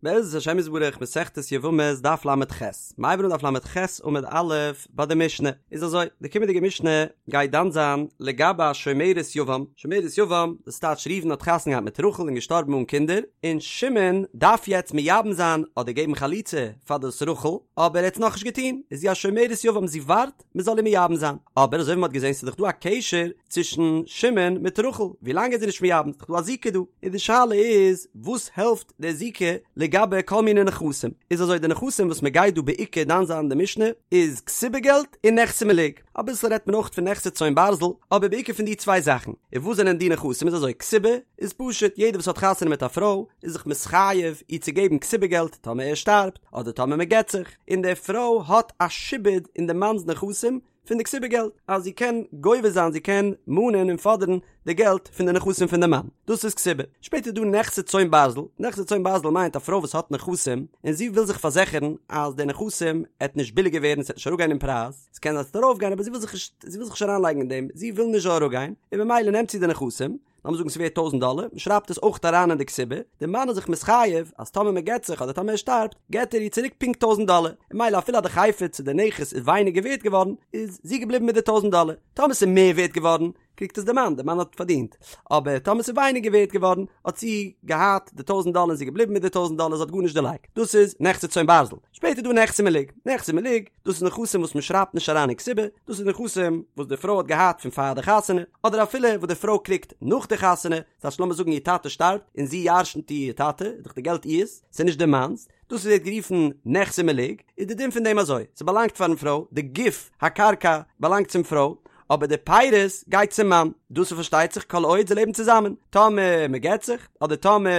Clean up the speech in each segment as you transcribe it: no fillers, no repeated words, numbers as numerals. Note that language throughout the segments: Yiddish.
בעזרת השם יתברך מסכת יבמות דף ל"ח, מ'הייבט אן דף ל"ח עמוד א' ביי די משנה, איז אזוי, די קומענדיגע משנה גייט דן זיין לגבי א שומרת יבם, שומרת יבם, דאס טייטש ראובן האט חתונה געהאט מיט רחל און געשטארבן אן קינדער, און שמעון דארף יעצט מייבם זיין אדער געבן חליצה פאר דאס רחל, אבער ער האט עס נאכנישט געטון, איז זי א שומרת יבם זי ווארט מען זאל איר מייבם זיין, אבער אזוי ווי מען האט געזען ס'איז דאך דא א קשר צווישן שמעון מיט רחל, ווי לאנג איז זי נישט מייבם, ס'איז דאך דא א זיקה דא, און די שאלה איז וואס העלפט די זיקה לגבי כל מיני נכסים, איז אזוי די נכסים וואס מען גייט דא בעיקר דן זיין אין די משנה איז כתובה געלט און נכסי מלוג, אביסל רעדט מען אויך פון נכסי צאן ברזל, אבער בעיקר פון די צוויי זאכן, און וואס זענען די נכסים איז אזוי כתובה איז פשוט יעדער וואס האט חתונה מיט א פרוי איז זיך מתחייב איר צו געבן כתובה געלט טאמער ער שטארבט אדער טאמער מען גט זיך, און די פרוי האט א שעבוד אין די מאנ'ס נכסים פון די כתובה געלט, אז זי קען גובה זיין, זי קען מאנען און פאדערן די געלט פון די נכסים פון די מאן, דאס איז כתובה. שפעטער איז דא נכסי צאן ברזל, נכסי צאן ברזל מיינט א פרוי וואס האט נכסים, און זי וויל זיך פארזיכערן אז די נכסים עט נישט ביליגער ווערן, ס'עט נישט אראפגיין אין פרייז, ס'קען זיין ס'עט ארויפגיין אבער זי וויל זיך נישט, זי וויל זיך נישט אריינלייגן אין דעם, זי וויל נישט זאל אראפגיין, און ממילא נעמט זי די נכסים, לאמיר זאגן ס'ווערט טויזנט דאלער, מ'שרייבט עס אויך אריין אין די כתובה, די מאן איז זיך מתחייב אז טאמער מ'גט זיך אדער טאמער ער שטארבט, געט ער איר צוריק פונקט טויזנט דאלער, און ממילא אפילו אז די חפץ צו די נכס איז ווייניגער ווערט געווארן, איז זי געבליבן מיט די טויזנט דאלער, טאמער ס'איז מער ווערט געווארן, קריגט עס די מאן, די מאן האט פארדינט, אבער טאמער ס'איז ווייניגער ווערט געווארן, האט זי געהאט די טויזנט דאלער און זי איז געבליבן מיט די טויזנט דאלער, זי האט גארנישט דערלייגט, דאס איז נכסי צאן ברזל. שפעטער איז דא נכסי מלוג, נכסי מלוג, דאס איז נכסים וואס מען שרייבט נישט אריין אין כתובה, דאס איז נכסים וואס די פרוי האט געהאט פון פאר די חתונה, אדער אפילו וואס די פרוי קריגט נאך די חתונה, ס'הייסט לאמיר זאגן איר טאטע שטארבט און זי ירש'נט איר טאטע, איז דאך די געלט איר'ס, ס'איז נישט די מאנ'ס, דאס ווערט גערופן נכסי מלוג, איז די דין פון דעם אזוי, ס'באלאנגט פארן פרוי, די גוף הקרקע באלאנגט צום פרוי, אבער די פירות גייט צום מאן, דאס איז פארשטייט זיך כל עוד זיי לעבן צוזאמען, טאמער מען גט זיך, אדער טאמער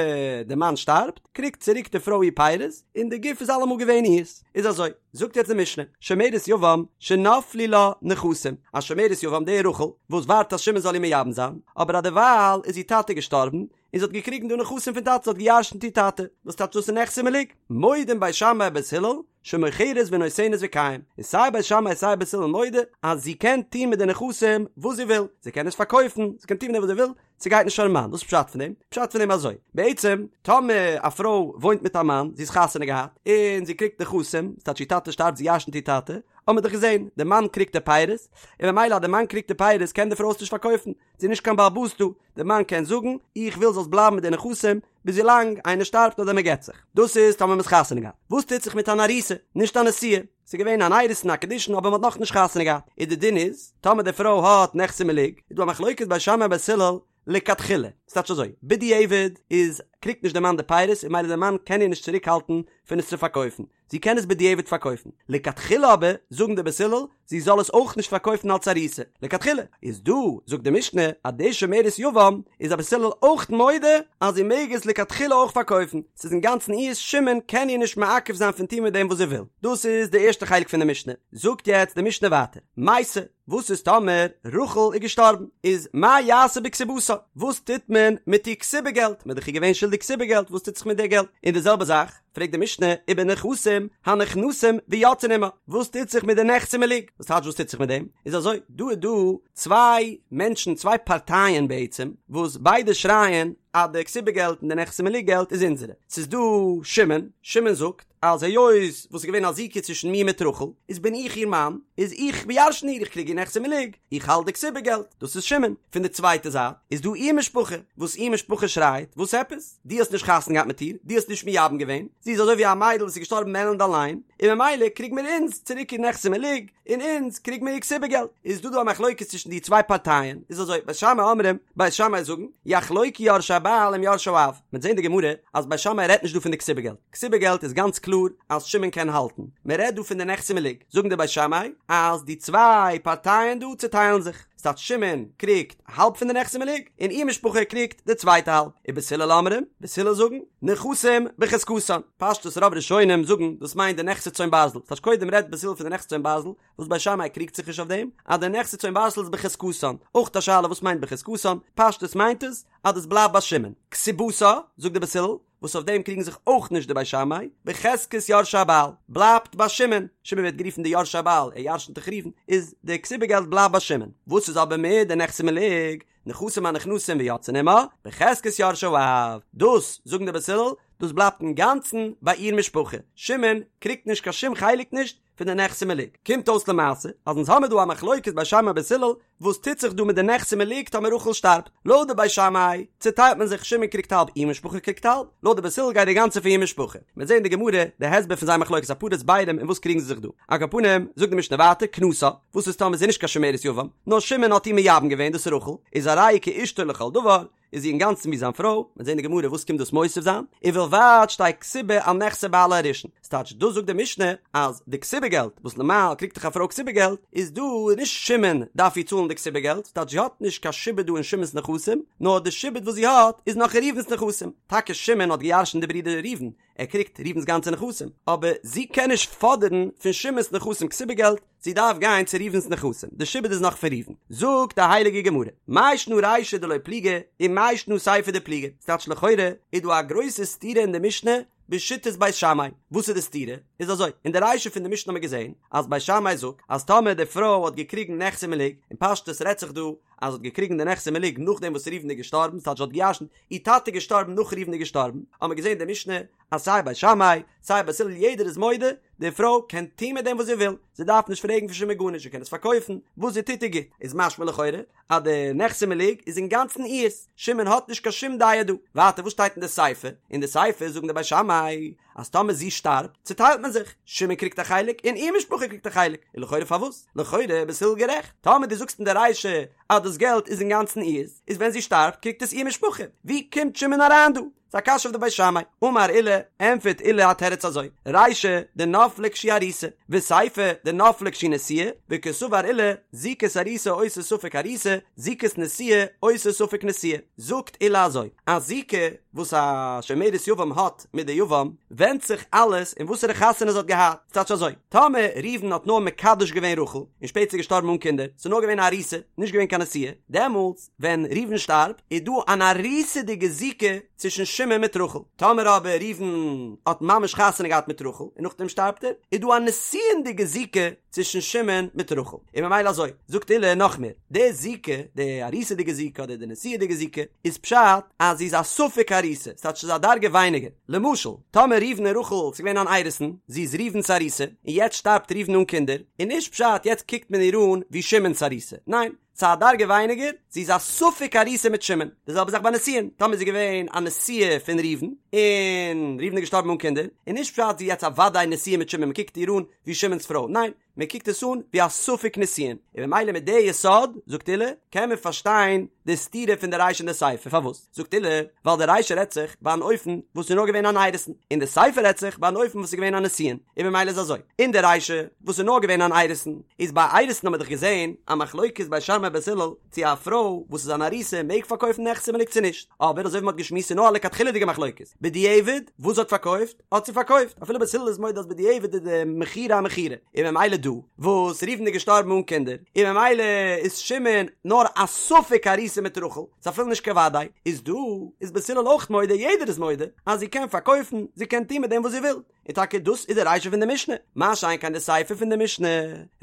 די מאן שטארבט, קריגט צוריק די פרוי איר פירות, און די גוף איז אלעמאל געווען איר'ס. איז אזוי, זאגט יעצט די משנה, שומרת יבם שנפלו לה נכסים, א שומרת יבם די רחל, וואס ווארט אז שמעון זאל איר מייבם זיין, אבער אדערווייל איז איר טאטע געשטארבן, און זי האט געקריגן דא נכסים פון טאטע, זי האט געירשנט איר טאטע, וואס טייטש דאס איז נכסי מלוג, מודים בית שמאי ובית הלל, שמוכרת ונותנת וקיים, איז סיי בית שמאי סיי בית הלל מודה אז זי קען טון מיט די נכסים וואס זי וויל, זי קען עס פארקויפן, זי קען טון מיט דעם וואס זי וויל, ס'גייט נישט פארן מאן, וואס איז פשט פון דעם? פשט פון דעם אזוי, בעצם טאמער א פרוי וואוינט מיט א מאן, זי איז חתונה געהאט, און זי קריגט נכסים, ס'טייטש איר טאטע שטארבט זי ירש'נט איר טאטע, האט מען דאך געזען, די מאן קריגט די פירות, און ממילא אז די מאן קריגט די פירות קען די פרוי עס נישט פארקויפן, זי איז נישט קיין בעל הבית דא, די מאן קען זאגן, איך וויל זאלסט בלייבן מיט די נכסים, ביז ווילאנג איינער שטארבט אדער מ'גט זיך. דאס איז טאמער מ'איז חתונה געהאט. וואס טוט זיך מיט אן ארוסה, נישט א נשואה? ס'איז געווען אן אירוסין א קידושין אבער מ'האט נאכנישט חתונה געהאט. איז די דין איז, טאמער די פרוי האט נכסי מלוג, איז דא א מחלוקת בית שמאי ובית הלל לכתחילה. ס'טייטש אזוי, בדיעבד איז קריגט נישט די מאן די פירות און ממילא די מאן קען איר נישט צוריק האלטן פון עס צו פארקויפן. זי קען עס בדיעבד פארקויפן. לכתחילה אבער, זאגן די בית הלל, זי זאל עס אויך נישט פארקויפן אלס ארוסה. לכתחילה. איז דא, זאגט די משנה, אז די שומרת יבם איז א בית הלל אויך מודה אז זי מעג עס לכתחילה אויך פארקויפן. ס'איז אינגאנצן אירס, שמעון קען איר נישט מעכב זיין פון טון מיט דעם וואס זי וויל. דאס איז די ערשטע חלק פון די משנה. זאגט יעצט די משנה ווייטער. מתה. וואס איז טאמער רחל איז געשטארבן? איז מה יעשה בכתובתה? וואס טוט מען מיט איר כתובה געלט? מ'איז דאך איר געווען שולדיג כתובה געלט, וואס טוט זיך מיט די געלט? און די זעלבע זאך פרעגט די משנה ובנכסים הנכנסים ויוצאין עמה, וואס טוט זיך מיט די נכסי מלוג? וואס טייטש וואס טוט זיך מיט דעם? איז אזוי, דא איז דא צוויי מענטשן, צוויי פארטייען בעצם, וואס ביידע שרייען אז די כתובה געלט און די נכסי מלוג געלט איז אונזערע. ס'איז דא שמעון, שמעון זאגט, אז היות וואס איז געווען א זיקה צווישן מיר מיט רחל, איז בין איך איר מאן, איז איך בירשן איר, איך קריג איר נכסי מלוג, איך האלט די כתובה געלט, דאס איז שמעון. פון די צווייטע זייט איז דא איר משפחה, וואס איר משפחה שרייט, וואס עפעס? דו האסט נישט חתונה געהאט מיט איר, דו האסט נישט מייבם געווען, זי איז אזוי ווי א מיידל וואס איז געשטארבן עלנד אליין, און ממילא קריג מיר אונז צוריק איר נכסי מלוג, און אונז קריג מיר איר כתובה געלט. איז דא דא א מחלוקת צווישן די צוויי פארטייען, איז אזוי, בית שמאי אומרים, בית שמאי זאגן, יחלוקו יורשי הבעל עם יורשי האב, מ'וועט זען די גמרא אז בית שמאי רעדט נישט דא פון די כתובה געלט, כתובה געלט איז גאנץ קלאר אז שמעון קען האלטן, מען רעדט דא פון די נכסי מלוג, זאגן די בית שמאי אז די צוויי פארטייען דא צוטיילן זיך, ס'טייטש שמעון קריגט האלב פון די נכסי מלוג און איר משפחה קריגט די צווייטע האלב, ובית הלל אומרים, בית הלל זאגן, נכסים בחזקתן, פשטות רוב ראשונים זאגן דאס מיינט די נכסי צאן ברזל, ס'טייטש קודם רעדט בית הלל פון די נכסי צאן ברזל, וואס בית שמאי קריגט זיך נישט אויף דעם, אז די נכסי צאן ברזל איז בחזקתן, אויך א שאלה וואס מיינט בחזקתן, פשטות מיינט עס אז דאס בלייבט ביי שמעון, כתובתה, זאגט די בית הלל, וואס אויף דעם קריגן זיך אויך נישט די בית שמאי, בחזקת יורשי הבעל, בלייבט ביי שמעון, שמעון ווערט גערופן די יורשי הבעל, ער ירשנט דאך ראובן, איז די כתובה געלט בלייבט ביי שמעון, וואס איז אבער מיט די נכסי מלוג, נכסים הנכנסים ויוצאין עמה, בחזקת יורשי האב, דאס, זאגן די בית הלל, דאס בלייבט אינגאנצן ביי איר משפחה, שמעון קריגט נישט קיין שום חלק נישט פון די נכסי מלוג. קומט אויס למעשה אז אונז האמיר דא א מחלוקת בית שמאי בית הלל וואס טוט זיך דא מיט די נכסי מלוג טאמער רחל שטארבט. לויט די בית שמאי צוטיילט מען זיך שמעון קריגט האלב איר משפחה קריגט האלב, לויט די בית הלל גייט די גאנצע פאר איר משפחה. מ'וועט זען אין די גמרא די הסבר פון זייער מחלוקת אפאר הסברים אין וואס קריגן זיי זיך דא. על כל פנים זאגט די משנה ווייטער כנסה, וואס איז טאמער זי איז נישט קיין שומרת יבם, נאר שמעון האט איר מייבם געווען דאס איז רחל, איז הרי היא כאשתו לכל דבר, איז זי אינגאנצן ווי זיין פרוי, מ'וועט זען אין די גמרא וואס קומט דאס מוסיף זיין, ובלבד שתהא כתובה על נכסי בעלה הראשון, ס'טייטש דאס זאגט די משנה אז די כתובה געלט וואס נארמאל קריגט דאך א פרוי כתובה געלט, איז דא נישט שמעון דארף איר צאלן די כתובה געלט, ס'טייטש זי האט נישט קיין שעבוד דא אין שמעון'ס נכסים, נאר די שעבוד וואס זי האט איז נאך אין ראובן'ס נכסים, טאקע שמעון האט געירשנט די ברודער ראובן, ער קריגט ראובן'ס גאנצע נכסים, אבער זי קען נישט פאדערן פון שמעון'ס נכסים כתובה געלט, זי דארף גיין צו ראובן'ס נכסים, די שעבוד איז נאך פון ראובן. זאגט די הייליגע גמרא, מאי שנא רישא דלא פליגי, ומאי שנא סיפא דפליגי, ס'טייטש לכאורה איז דא א גרויסע סתירה אין די משנה בשיטת בית שמאי, וואס איז די סתירה? איז אזוי, אין די רישא פון די משנה האט מען געזען אז בית שמאי זאגט אז טאמער די פרוי האט געקריגן נכסי מלוג, אין פשטות רעדט זיך דא אז זי האט געקריגן די נכסי מלוג נאכדעם וואס ראובן איז געשטארבן, ס'טייטש זי האט געירשנט, איר טאטע איז געשטארבן נאך ראובן איז געשטארבן, האט מען געזען אין די משנה אז סיי בית שמאי סיי בית הלל יעדער איז מודה, די פרוי קען טון מיט דעם וואס זי וויל, זי דארף נישט פרעגן פון שמעון גארנישט, זי קען עס פארקויפן, וואס זי טוט איז גוט, איז משמע לכאורה אז די נכסי מלוג איז אינגאנצן אירס, שמעון האט נישט קיין שום דעה דא. ווייטער וואס שטייט אין די סיפא? אין די סיפא זאגן די בית שמאי אז טאמער זי שטארבט צוטיילט מען זיך, שמעון קריגט א חלק און איר משפחה קריגט א חלק, און לכאורה פארוואס? לכאורה בית הלל גערעכט, טאמער דו זאגסט אין די רישא אז דאס געלט איז אינגאנצן אירס, איז ווען זי שטארבט קריגט עס איר משפחה, ווי קומט שמעון אריין דא? ס'איז א קשיא אויף די בית שמאי. אמר עולא, ענטפערט עולא א תירוץ אזוי, רישא דנפלה כשהיא ארוסה, וסיפא דנפלה כשהיא נשואה, וקסבר עולא, זיקת ארוסה עושה ספק ארוסה, זיקת נשואה עושה ספק נשואה. זאגט עולא אזוי, א זיקה וואס א שומרת יבם האט מיט די יבם, ווענדט זיך אלעס אין וואסערע חתונה זי האט געהאט. ס'טייטש אזוי, טאמער ראובן האט נאר מקדש געווען רחל, און שפעטער איז געשטארבן אן קינדער, ס'איז נאר געווען א ארוסה, נישט געווען קיין נשואה, דעמאלטס, ווען ראובן שטארבט איז דא אן ארוסה'דיגע זיקה צווישן שמעון מיט רחל, טאמער אבער ראובן האט ממש חתונה געהאט מיט רחל און נאכדעם שטארבט ער, איז דא א נישואינ'דיגע זיקה צווישן שמעון מיט רחל, און ממילא אזוי, זאגט עולא נאך מער, די זיקה, די ארוסה'דיגע זיקה אדער די נישואי'דיגע זיקה, איז פשט אז זי איז א ספק ארוסה, ס'טייטש ס'איז א דרגה ווייניגער, למשל, טאמער ראובן און רחל ס'איז געווען אן אירוסין, זי איז ראובן'ס ארוסה, און יעצט שטארבט ראובן אן קינדער, איז נישט פשט יעצט קוקט מען איר אן ווי שמעון'ס ארוסה, ניין, ס'איז א דרגה ווייניגער, זי איז א ספק ארוסה מיט שמעון, די זעלבע זאך ביי נישואין, טאמער איז זי געווען א נשואה פון ראובן, און ראובן איז געשטארבן אן קינדער, איז נישט פשט זי איז יעצט א וודאי נשואה מיט שמעון, מ'קוקט איר אן ווי שמעון'ס פרוי, ניין, מען קוקט עס אן ווי א ספק נישואין, און ממילא מיט די יסוד, זאגט עולא, קען מען פארשטיין די סתירה פון די רישא און די סיפא, פארוואס? זאגט עולא, ווייל די רישא רעדט זיך ביי אן אופן וואס איז נאר געווען אן אירוסין, און די סיפא רעדט זיך ביי אן אופן וואס איז געווען א נישואין, און ממילא איז אזוי, אין די רישא וואס איז נאר געווען אן אירוסין, איז ביי אירוסין האט מען דאך געזען א מחלוקת בית שמאי בית הלל צו א פרוי וואס איז אן ארוסה מעג פארקויפן נכסי מלוג צו נישט, אבער אזוי ווי מען האט געשמועסט איז נאר א לכתחילה'דיגע מחלוקת, בדיעבד וואס זי האט פארקויפט האט זי פארקויפט, אפילו בית הלל איז מודה אז בדיעבד איז די מכירה א מכירה, און ממילא דא וואס ראובן איז געשטארבן אן קינדער, און ממילא איז שמעון נאר א ספק ארוסה מיט רחל, ס'איז אפילו נישט קיין וודאי, איז דא איז בית הלל אויך מודה, יעדער איז מודה, אז זי קען פארקויפן, זי קען טון מיט דעם וואס זי וויל, און טאקע דאס איז די רישא פון די משנה, מה שאין כן די סיפא פון די משנה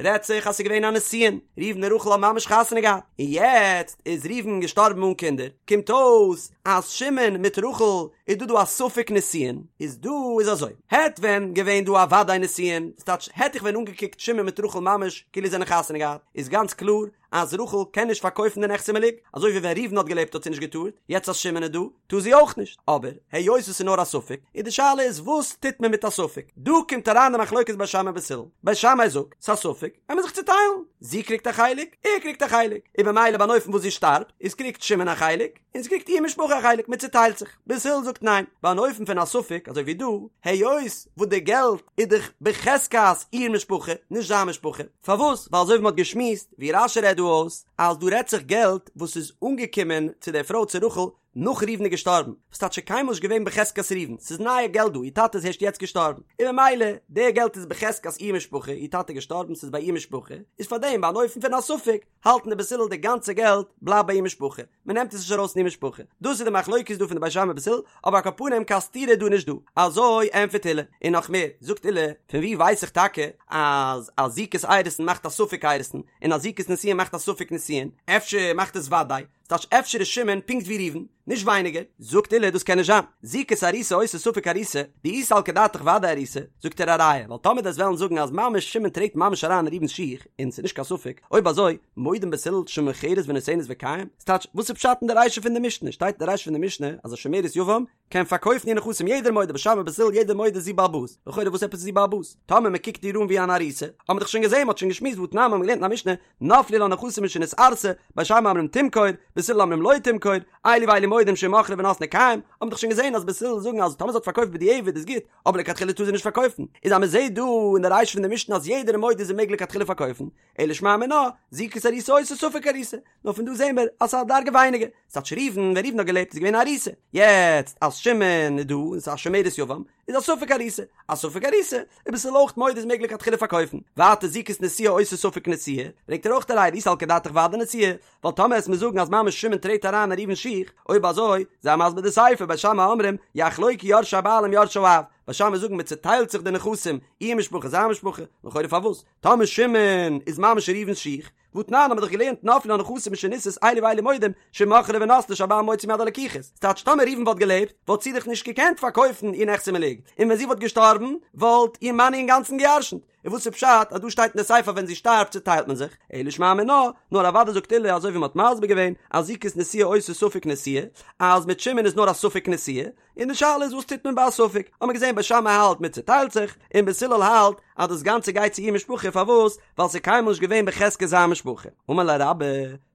רעדט זיך אז ס'איז געווען א נישואין, ראובן און רחל האבן ממש חתונה געהאט, און יעצט איז ראובן געשטארבן אן קינדער, קומט אויס אז שמעון מיט רחל איז דא דא א ספק נישואין, איז דא איז אזוי, העט ווען געווען דא א וודאי נישואין, ס'טייטש העט איך ווען אנגעקוקט שמעון מיט רחל ממש כאילו זיי זענען חתונה געהאט, איז גאנץ קלאר אז רחל קען נישט פארקויפן די נכסי מלוג, אזוי ווי ווען ראובן האט געלעבט האט זי נישט געטארט, יעצט אז שמעון איז דא, טאר זי אויך נישט, אבער היות עס איז נאר א ספק, איז די שאלה איז וואס טוט מען מיט א ספק, דא קומט אריין די מחלוקת בית שמאי בית הלל, בית שמאי זאגט, ס'איז א ספק, עמיר זיך צוטיילן, זי קריגט א חלק, ער קריגט א חלק, און במילא ביי אן אופן וואס זי שטארבט, איז קריגט שמעון א חלק, און ס'קריגט איר משפחה א חלק, מען צוטיילט זיך, בית הלל זאגט ניין, ביי אן אופן פון א ספק, אזוי ווי דא, היות וואס די געלט איז דאך בחזקת איר משפחה, נישט זיין משפחה, פארוואס? ווייל אזוי ווי מען האט געשמועסט, ווי רש"י רעדט דא אויס, אז דא רעדט זיך געלט וואס איז אנגעקומען צו דער פרוי צו רחל נאך ראובן איז געשטארבן, וואס טייטש ס'איז קיינמאל נישט געווען בחזקת ראובן, ס'איז נייע געלט דא, איר טאטע איז הערשט יעצט געשטארבן, און ממילא די געלט איז בחזקת איר משפחה, איר טאטע איז געשטארבן ס'איז ביי איר משפחה, איז פארדעם ביי אן אופן פון א ספק, האלטן די בית הלל די גאנצע געלט בלייבט ביי איר משפחה, מען נעמט עס נישט ארויס פון איר משפחה, דאס איז די מחלוקת דא פון די בית שמאי בית הלל, אבער על כל פנים קיין סתירה איז דא נישט דא, אזוי ענטפערט עולא, און נאך מער, זאגט עולא, פון ווי ווייס איך טאקע אז א זיקת אירוסין מאכט א ספק אירוסין, און א זיקת נישואין מאכט א ספק נישואין, אפשר מאכט עס וודאי, ס'טייטש אפשר איז שמעון פונקט ווי ראובן, נישט ווייניגער, זאגט עולא דאס קען נישט זיין, זיקת ארוסה עושה ספק ארוסה, דאי סלקא דעתך ודאי ארוסה, זאגט ער א ראיה, ווייל טאמער דו'סט וועלן זאגן אז ממש שמעון טרעט ממש אריין אין ראובן'ס שיך, און ס'איז נישט קיין ספק, אויב אזוי, מודים בית הלל שמוכרת ונותנת וקיים, ס'טייטש, וואס איז פשט אין די רישא פון די משנה, שטייט אין די רישא פון די משנה אז א שומרת יבם קען פארקויפן איר נכסים יעדער מודה בית שמאי בית הלל יעדער מודה זי בעל הבית, לכאורה וואס עפעס איז זי בעל הבית? טאמער מ'קוקט איר אן ווי אן ארוסה, האט מען דאך שוין געזען, מ'האט שוין געשמועסט והתנן מ'האט געלערנט אין א משנה, נפלו לה נכסים משנתארסה, בית שמאי אומרים תמכור, בית הלל אומרים לא תמכור, אלו ואלו מודים שאם מכרה ונתנה קיים, האט מען דאך שוין געזען אז בית הלל זאגן אז טאמער זי האט פארקויפט בדיעבד איז גוט, אבער לכתחילה טאר זי נישט פארקויפן, איז אז מ'זעט דא אין די רישא פון די משנה אז יעדער איז מודה זי מעג לכתחילה פארקויפן, אלא שמע מינה, זיקת ארוסה עושה ספק ארוסה, נאר פון דא זעהן מיר אז ס'איז א דרגה ווייניגער, ס'טייטש ראובן, ווען ראובן האט געלעבט איז געווען א ארוסה, יעצט אז שמעון איז דא און ס'איז א שומרת יבם, איז א ספק ארוסה, א ספק ארוסה, איז בית הלל אויך מודה זי מעג לכתחילה פארקויפן, ווייטער זיקת נשואה עושה ספק נשואה, ברענגט ער אויך א ראיה דאי סלקא דעתך ודאי נשואה, ווייל טאמער וועסט מיר זאגן אז ממש שמעון טרעט אריין אין ראובן'ס שיך, אויב אזוי, זיי מסביר די סיפא, בית שמאי אומרים, יחלוקו יורשי הבעל עם יורשי האב, בית שמאי זאגן מען צוטיילט זיך די נכסים, איר משפחה זיין משפחה, לכאורה פארוואס? טאמער שמעון איז ממש אין ראובן'ס שיך, והתנן האבן מיר דאך געלערנט נפלו לה נכסים משנישאת אלו ואלו מודים שאם מכרה ונתנה שהבעל מוציא מיד הלקוחות, ס'טייטש טאמער ראובן וואלט געלעבט וואלט זי דאך נישט געקענט פארקויפן איר נכסי מלוג, און ווען זי וואלט געשטארבן וואלט איר מאן איר אינגאנצן געירשנט, און וואס איז פשט אז דא שטייט אין די סיפא ווען זי שטארבט צוטיילט מען זיך, אלא שמע מינה, נאר אוודאי זאגט עולא אזוי ווי מ'האט מסביר געווען אז זיקת נשואה עושה ספק נשואה, אז מיט שמעון איז נאר א ספק נשואה, און די שאלה איז וואס טוט מען ביי א ספק, האט מען געזען בית שמאי האלט מען צוטיילט זיך, און בית הלל האלט אז דאס גאנצע גייט צו איר משפחה, פארוואס? ווייל ס'איז קיינמאל נישט געווען בחזקת זיין משפחה. אמר ליה רבה,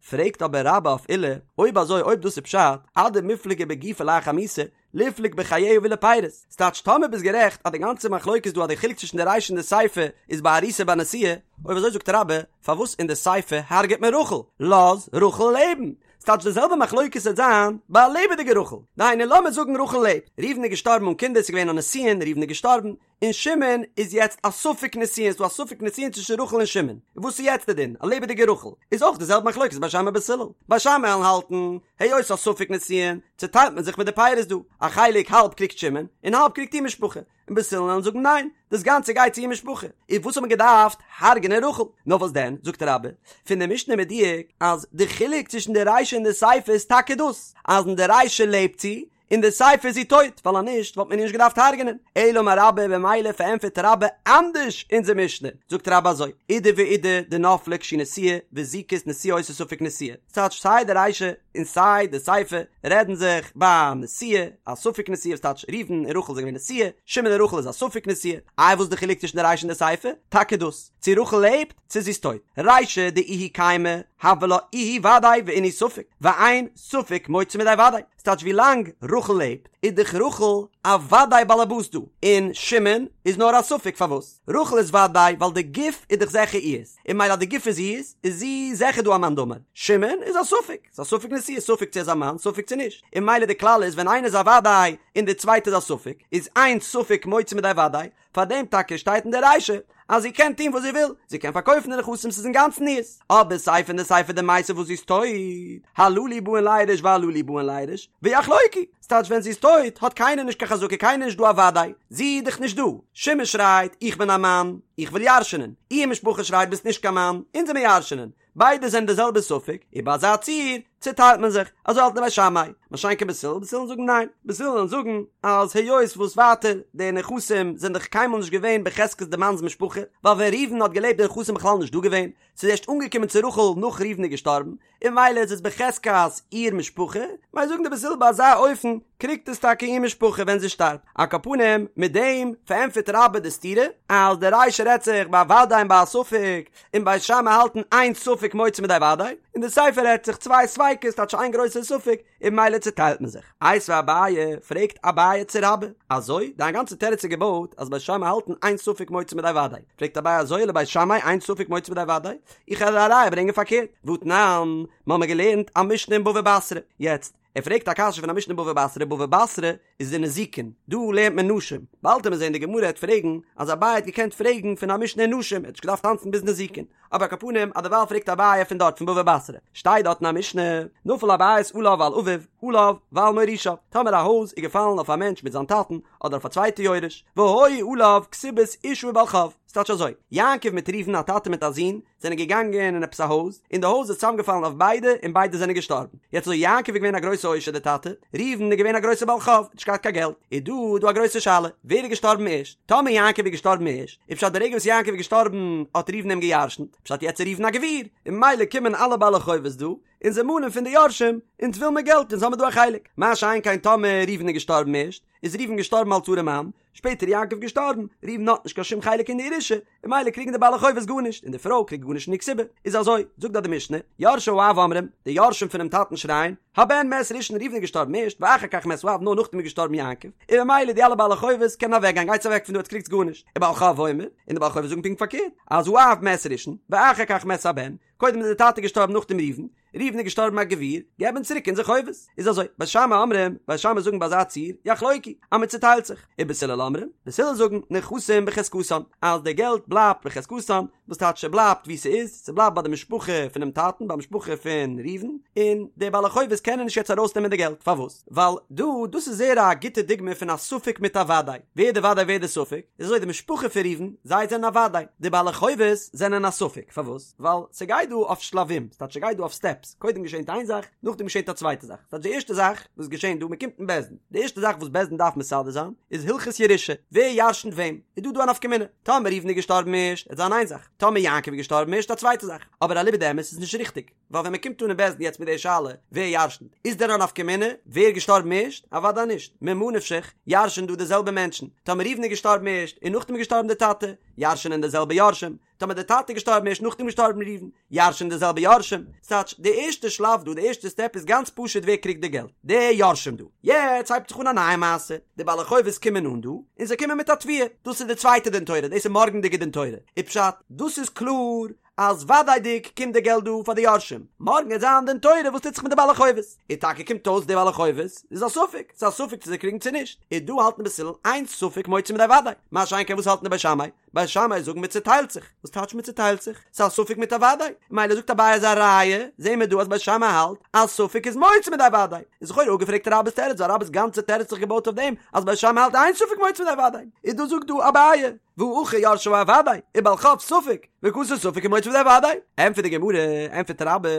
פרעגט אבער רבה אויף עולא, אויב אזוי אויב דאס איז פשט, אדמיפלגי בגופה לאחר מיתה, ליפלוג בחייה ולפירות, ס'טייטש טאמער ביסט גערעכט אז די גאנצע מחלוקת דא אז די חילוק צווישן די רישא און די סיפא איז ביי ארוסה ביי נשואה, אויב אזוי זאגט רבה, פארוואס אין די סיפא הרג'ט מען רחל? לאז רחל לעבן! ס'טייטש די זעלבע מחלוקת וועט זיין ביי א לעבעדיגע רחל. דהיינו לאמיר זאגן רחל לעבט, ראובן איז געשטארבן אן קינדער, ס'איז געווען א נישואין, ראובן איז געשטארבן, און שמעון איז יעצט א ספק נישואין, ס'דא א ספק נישואין צווישן רחל און שמעון, וואס איז יעצט די דין? א לעבעדיגע רחל איז אויך די זעלבע מחלוקת בית שמאי בית הלל, בית שמאי וועלן האלטן, היות א ספק נישואין, צוטיילט מען זיך מיט די פירות דא, א חלק האלב קריגט שמעון, און האלב קריגט איר משפחה, און בית הלל וועלן זאגן ניין, דאס גאנצע גייט צו איר משפחה, איז וואס האט מען געדארפט הרג'נען רחל? נאר וואס דען, זאגט רבה, פון די משנה מדויק אז די חילוק צווישן די רישא און די סיפא איז טאקע דאס, אז אין די רישא לעבט זי, אין די סיפא איז זי טויט, ווייל אז נישט וואלט מען איר נישט געדארפט הרג'נען. אלא אמר רבה, במילא פארענטפערט רבה אנדערש אונזער משנה, זאגט רבה אזוי, אידי ואידי דנפלה כשהיא נשואה, וזיקת נשואה עושה ספק נשואה, ס'טייטש סיי די רישא און סיי די סיפא רעדן זיך ביי נשואה, א ספק נשואה וואס טייטש ראובן און רחל זענען געווען נשואה, שמעון און רחל איז א ספק נשואה, איי וואס איז די חילוק צווישן די רישא און די סיפא? טאקע דאס, צו רחל לעבט צו זי איז טויט. רישא דאיהי קיימא, הוה לה איהי ודאי ואינהו ספק, ואין ספק מוציא מידי ודאי. ס'טייטש ווי לאנג רחל לעבט איז דאך רחל א ודאי באלעבאס דא, און שמעון איז נאר א ספק פארוואס רחל איז ודאי ווייל די גוף איז דאך זיכער איהר'ס, און ממילא אז די גוף איז איהר'ס איז זי זיכער דא א מאן דאמר, שמעון איז א ספק, ס'איז א ספק נשואה, ספק צו ער איז א מאן ספק צו נישט, און ממילא די כלל איז ווען איינער איז א ודאי און די צווייטע איז א ספק, איז אין ספק מוציא מידי ודאי, פאר דעם טאקע שטייט אין די רישא אז זי קען טון וואס זי וויל, זי קען פארקויפן די נכסים ס'איז אינגאנצן איר'ס, אבער סיפא אין די סיפא דמתה וואס זי איז טויט, הללו באין לירש והללו באין לירש, ויחלוקו, ס'טייטש ווען זי איז טויט האט קיינער נישט קיין חזקה קיינער נישט דא א וודאי, זי איז דאך נישט דא, שמעון שרייט איך בין א מאן, איך וויל ירש'נען, איר משפחה שרייט ביסט נישט קיין מאן, אונז וועמיר ירש'נען, ביידע זענען די זעלבע ספק, און ביי אזא ציור צוטיילט מען זיך, אזוי האלטן די בית שמאי, מה שאין כן בית הלל, בית הלל זאגן ניין, בית הלל זאגן אז היות וואס ווייטער די נכסים זענען דאך קיינמאל נישט געווען בחזקת די מאנ'ס משפחה, ווייל ווען ראובן האט געלעבט די נכסים בכלל נישט דא געווען, ס'איז ערשט אנגעקומען צו רחל נאך ראובן איז געשטארבן, און ממילא איז עס בחזקת איר משפחה, ממילא זאגן די בית הלל ביי אזא אופן קריגט עס טאקע איר משפחה ווען זי שטארבט. על כל פנים, מיט דעם פארענטפערט רבה די סתירה, אז די רישא רעדט זיך ביי א ודאי און ביי א ספק, און בית שמאי האלטן אין ספק מוציא מידי ודאי, און די סיפא רעדט זיך צוויי ספיקות טייטש איין גרויסע ספק, און ממילא צוטיילט מען זיך. איתיביה אביי, פרעגט אביי צו רבה, אזוי? דיין גאנצע תירוץ איז געבויט אז בית שמאי האלטן אין ספק מוציא מידי ודאי. פרעגט אביי אזוי לבית שמאי אין ספק מוציא מידי ודאי? איך וועל א ראיה ברענגען פארקערט, והתנן, מ'האמיר געלערנט א משנה אין בבא בתרא, יעצט, ער פרעגט א קשיא פון א משנה אין בבא בתרא, בבא בתרא איז אין נזיקין, דא לערנט מען נשים, באלד וועט מען זען די גמרא העט פרעגן אז אביי האט געקענט פרעגן פון א משנה אין נשים, ער האט נישט געדארפט טאנצן ביז נזיקין, אבער על כל פנים אז דערווייל פרעגט אביי פון דארט פון בבא בתרא, שטייט דארט אין א משנה, נפל הבית עליו ועל אביו, עליו ועל מורישיו, טאמער א הויז איז געפאלן אויף א מענטש מיט זיין טאטן, אדער אויף א צווייטע יורש, והיו עליו כתובת אשה ובעל חוב. ס'טייטש אזוי, יעקב מיט ראובן א טאטע מיט א זון, זענען געגאנגען אין עפעס א הויז, און די הויז איז צוזאמגעפאלן אויף ביידע און ביידע זענען געשטארבן. יעצט אזוי יעקב איז געווען א גרויסע עושר די טאטע, ראובן איז געווען א גרויסע בעל חוב, נישט געהאט קיין געלט. איז דא דא א גרויסע שאלה, ווער איז געשטארבן ערשט? טאמער יעקב איז געשטארבן ערשט, איז פשט די רגע וואס יעקב איז געשטארבן האט ראובן אים גע'ירש'נט, פשט יעצט איז ראובן א גביר, און ממילא קומען אלע בעלי חובות דא, און זיי מאנען פון די יורשים, אונז וויל מיר געלט, אונז האמיר דא א חלק. מה שאין כן טאמער ראובן איז געשטארבן ערשט, איז ראובן געשטארבן אלס ארעמאן, שפעטער יעקב געשטארבן, ראובן האט נישט קיין שום חלק אין די ירושה, און ממילא קריגן די בעלי חובות גארנישט, און די פרוי קריגט גארנישט אין די כתובה. איז אזוי, זאגט דארט די משנה, יורשי האב אומרים, די יורשים פונעם טאטן שרייען, הבן מת ראשון ראובן איז געשטארבן ערשט, ואחר כך מת האב נאר נאכדעם איז געשטארבן יעקב, און ממילא די אלע בעלי חובות קענען אוועקגיין, גייטס אוועק פון דא עטס קריגטס גארנישט, ובעל חוב אומר, און די בעלי חובות זאגן פונקט פארקערט, אז האב מת ראשון, ואחר כך מת הבן, קודם איז די טאטע געשטארבן נאכדעם ראובן, ראובן איז געשטארבן א גביר, געב אונז צוריק אונזער חובות. איז אזוי, בית שמאי אומרים, בית שמאי זאגן ביי אזא ציור, יחלוקו, אז מען צוטיילט זיך, ובית הלל אומרים, בית הלל זאגן, נכסים בחזקתן, אז די געלט בלייבט בחזקתן, וואס טייטש ס'בלייבט ווי ס'איז, ס'בלייבט ביי די משפחה פונעם טאטן, ביי משפחה פון ראובן, און די בעלי חובות קענען נישט יעצט ארויסנעמען די געלט, פארוואס? ווייל דא, דאס איז זייער א גוטע דוגמא פון א ספק מיט א וודאי, ווער די וודאי ווער די ספק, איז אזוי די משפחה פון ראובן, זיי זענען א וודאי, די בעלי חובות זענען א ספק, פארוואס? ווייל ס'גייט דא אויף שלבים, ס'טייטש ס'גייט דא אויף סטעפס, קודם געשענט איין זאך, נאכדעם געשענט א צווייטע זאך, ס'טייטש די ערשטע זאך וואס געשענט דא, מ'קומט אין בית דין, די ערשטע זאך וואס בית דין דארף מסדר זיין, איז הלכות ירושה, ווער ירשנ'ט וועם, איז דא דא א נפקא מינה, טאמער ראובן איז געשטארבן ערשט, וועט זיין איין זאך, טאמער יעקב איז געשטארבן ערשט א צווייטע זאך, אבער אליבא דאמת איז נישט ריכטיג. ווייל ווען מען קומט אן אין בית דין יעצט מיט די שאלה ווער ירשנ'ט, איז דען א נפקא מינה ווער איז געשטארבן ערשט? אוודאי נישט, ממה נפשך, ירש'ן דא די זעלבע מענטשן, טאמער ראובן איז געשטארבן ערשט און נאכדעם איז געשטארבן די טאטע, ירש'נען די זעלבע יורשים, טאמער די טאטע איז געשטארבן ערשט נאכדעם געשטארבן ראובן, ירש'נען די זעלבע יורשים, ס'טייטש די ערשטע שלב דא, די ערשטע סטעפ איז גאנץ פשוט ווער קריגט די געלט, די יורשים דא. יעצט הייבט זיך אן א נייע מעשה, די בעלי חובות קומען אן דא, און זיי קומען מיט א תביעה, דאס איז די צווייטע דין תורה, דאס איז מארגנדיגע דין תורה, איז פשט, דאס איז קלאר אז וודאי'דיג קומט די געלט דא פאר די יורשים, מארגן וועט זיין דין תורה וואס טוט זיך מיט די בעלי חובות, און טאקע קומט אויס די בעלי חובות איז א ספק, ס'איז א ספק צו זיי קריגן צו נישט, און דא האלטן בית הלל אין ספק מוציא מידי וודאי, מה שאין כן וואס האלטן די בית שמאי, בית שמאי זאגן מען צוטיילט זיך, וואס טייטש מען צוטיילט זיך? ס'איז א ספק מיט א וודאי, מילא זאגט אביי אז א ראיה, זעהן מיר דא אז בית שמאי האלט אז ספק איז מוציא מידי וודאי, איז לכאורה אפגעפרעגט רבה'ס תירוץ ווייל רבה'ס גאנצע תירוץ האט זיך געבויט אויף דעם אז בית שמאי האלט אין ספק מוציא מידי וודאי, איז דא זאגט דא אביי והא הכא יורשי האב ודאי, ובעל חוב ספק, וקאתי ספק ומוציא מידי וודאי. ענטפערט די גמרא, ענטפערט רבה,